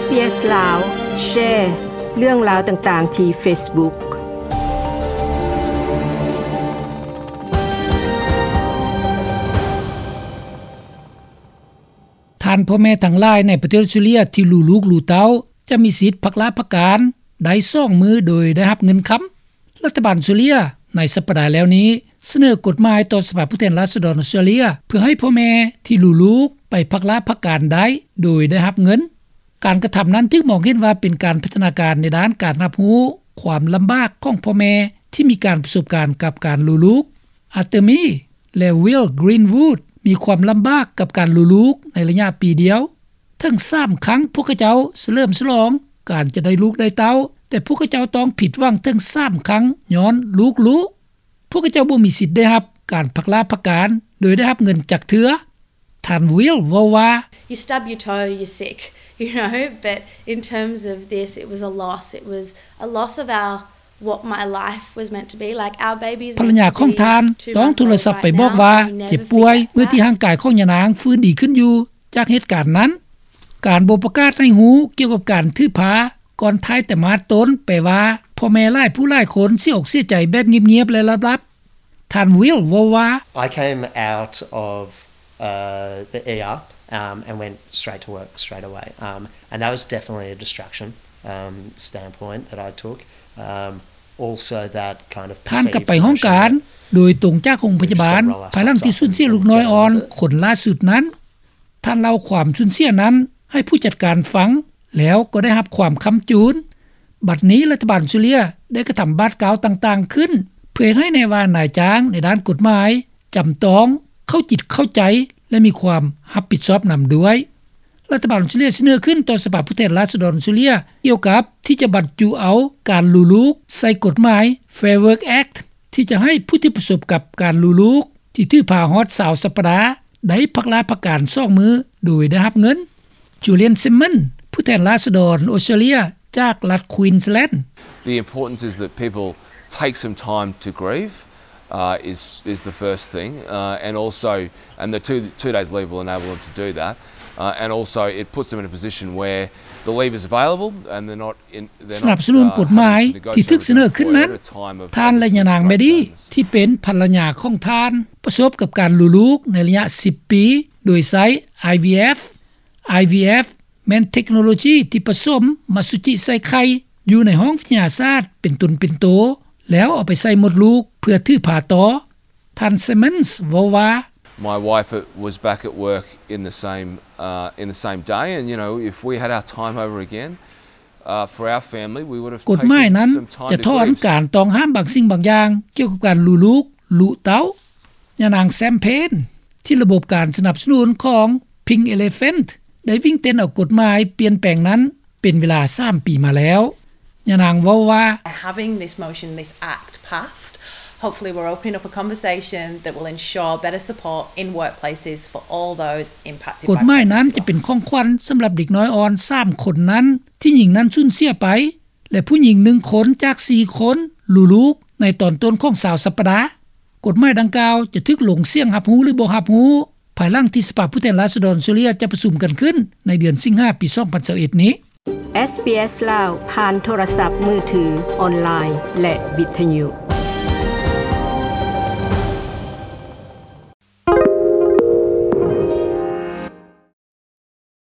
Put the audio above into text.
เอส ลาว แชร์เรื่องราวต่างๆที่ Facebook ທ່ານພໍ່ແມ່ທັງຫຼາຍໃນປະເທດອອສເຕຣເລັຽທີ່ລູກລູກລູເຕົ້າ ຈະມີສິດພັກລາພັກການໄດ້ສອງມື້ໂດຍໄດ້ຮັບເງິນຄຳ. ລັດຖະບານອອສເຕຣເລັຽໃນສັບປະດາແລ້ວນີ້ ສະເໜີກົດໝາຍຕໍ່ສະພາຜູ້ແທນລາຊະດອນອອສເຕຣເລັຽ ເພື່ອໃຫ້ພໍ່ແມ່ທີ່ລູກລູກໄປພັກລາພັກການໄດ້ໂດຍໄດ້ຮັບເງິນ. ການກະທຳນັ້ນຖືກມອງເຫັນວ່າເປັນການພັດທະນາການໃນດ້ານການຮັບຮູ້ຄວາມລຳບາກຂອງພໍ່ແມ່ທີ່ມີການປະສົບການກັບການລູກລູກ. ອາເຕີມີ ແລະ ວິລ ກຣີນວູດ ມີຄວາມລຳບາກກັບການລູກລູກໃນໄລຍະປີດຽວ. ເຖິງສາມຄັ້ງພວກເຂົາເຈົ້າສະເຫຼີມສະຫຼອງການຈະໄດ້ລູກໄດ້ເຕົ້າ, ແຕ່ພວກເຂົາເຈົ້າຕ້ອງຜິດຫວັງເຖິງສາມຄັ້ງຍ້ອນລູກລູກ. ພວກເຂົາເຈົ້າບໍ່ມີສິດໄດ້ຮັບການພັກລາພັກການໂດຍໄດ້ຮັບເງິນຈັກເທື່ອ. ທ່ານວິລເວົ້າວ່າ You stub your toe, you're sick, you know, but in terms of this, it was a loss. It was a loss of our, what my life was meant to be. Like, our babies ພັນລະຍາຂອງທ່ານຕ້ອງໂທລະສັບໄປບອກວ່າເຈັບປ່ວຍເມື່ອທີ່ຮ່າງກາຍຂອງຍານາງຟື້ນດີຂຶ້ນຢູ່ຈາກເຫດການນັ້ນ. ການບໍ່ປະກາດໃຫ້ຮູ້ກ່ຽວກັບການຖືພາ ກ່ອນທ້າຍໄຕມາດຕົ້ນ ແປວ່າພໍ່ແມ່ຫຼາຍຜູ້ຫຼາຍຄົນເສຍອົກເສຍໃຈແບບງຽບໆ ແລະ ລັບໆ. ທ່ານວິລເວົ້າວ່າ I came out of, uh, the ER, um, and went straight to work straight away. Um, and that was definitely a distraction, um, standpoint that I took. Um, also that kind of ທ່ານກັບໄປຫ້ອງການໂດຍຕົງຈາກໂຮງພະຍາບານ ພາຍຫຼັງທີ່ສູນເສຍລູກນ້ອຍອ່ອນຄົນຫຼ້າສຸດນັ້ນ. ທ່ານເລົ່າຄວາມສູນເສຍນັ້ນໃຫ້ຜູ້ຈັດການຟັງ ແລ້ວກໍໄດ້ຮັບຄວາມຄ້ຳຈູນ. ບັດນີ້ລັດຖະບານອອສເຕຣເລັຽໄດ້ກະທຳບາດກ້າວຕ່າງໆຂຶ້ນ ເພື່ອເຮັດໃຫ້ແນ່ວ່ານາຍຈ້າງໃນດ້ານກົດໝາຍຈຳຕ້ອງເຂົ້າຈິດເຂົ້າໃຈ ແລະ ມີຄວາມຮັບຜິດຊອບນຳດ້ວຍ. ລັດຖະບານອອສເຕຣເລັຽສະເໜີຂຶ້ນຕໍ່ສະພາຜູ້ແທນລາຊະດອນອອສເຕຣເລັຽ ກ່ຽວກັບທີ່ຈະບັນຈຸເອົາການລູກລູກໃສ່ກົດໝາຍ Fair Work Act ທີ່ຈະໃຫ້ຜູ້ທີ່ປະສົບກັບການລູກລູກ ທີ່ຖືພາຮອດຊາວສັບປະດາ ໄດ້ພັກລາພັກການສອງມື້ໂດຍໄດ້ຮັບເງິນ. ຈູລຽນ ຊິມມອນ ຜູ້ແທນລາຊະດອນອອສເຕຣເລັຽຈາກລັດ Queensland. The importance is that people take some time to grieve, uh, is, is the first thing, uh, and also, and the two, two days leave will enable them to do that, uh, and also it puts them in a position where the leave is available and they're not ສະໜັບສະໜູນກົດໝາຍທີ່ຖືກສະເໜີຂຶ້ນນັ້ນ, ທ່ານ ແລະ ຍານາງ ແມດດີ້ ທີ່ເປັນພັນລະຍາຂອງທ່ານ ປະສົບກັບການລູກລູກໃນໄລຍະສິບປີ ໂດຍໃຊ້ ໄອ ວີ ເອັຟ. ໄອ ວີ ເອັຟ ແມ່ນເທັກໂນໂລຈີທີ່ປະສົມອະສຸຈິໃສ່ໄຂ່ຢູ່ໃນຫ້ອງວິທະຍາສາດເປັນຕົນເປັນໂຕ ແລ້ວເອົາໄປໃສ່ມົດລູກເພື່ອຖືພາຕໍ່. ທ່ານ Simmons ເວົ້າວ່າ My wife was back at work in the same, uh, in the same day, and, you know, if we had our time over again, uh, for our family, we would have ກົດໝາຍນັ້ນຈະຖອນການຕ້ອງຫ້າມບາງສິ່ງບາງຢ່າງກ່ຽວກັບການລູກລູກ ລູກເຕົ້າ. ຍານາງ Sam Payne ທີ່ລະບົບການສະໜັບສະໜູນຂອງ Pink Elephant ໄດ້ວິ່ງເຕັ້ນເອົາກົດໝາຍປ່ຽນແປງນັ້ນ ເປັນເວລາສາມປີມາແລ້ວ. ຍານາງເວົ້າວ່າ Having this motion, this act passed, hopefully we're opening up a conversation that will ensure better support in workplaces for all those impacted by ກົດໝາຍນັ້ນຈະເປັນຂອງຂວັນສຳລັບເດັກນ້ອຍອ່ອນສາມຄົນນັ້ນ ທີ່ຍິງນັ້ນສູນເສຍໄປ ແລະ ຜູ້ຍິງໜຶ່ງຄົນຈາກສີ່ຄົນ ລູກລູກໃນຕອນຕົ້ນຂອງຊາວສັບປະດາ. ກົດໝາຍດັ່ງກ່າວຈະຖືກລົງສຽງຮັບຮູ້ ຫຼື ບໍ່ຮັບຮູ້ ພາຍຫຼັງທີ່ສະພາຜູ້ແທນລາຊະດອນອອສເຕຣເລັຽຈະປະຊຸມກັນຂຶ້ນໃນເດືອນສິງຫາ ປີສອງພັນຊາວເອັດນີ້. ເອສ ບີ ເອສ ລາວ ຜ່ານໂທລະສັບມືຖື, ອອນລາຍ ແລະ ວິທະຍຸ.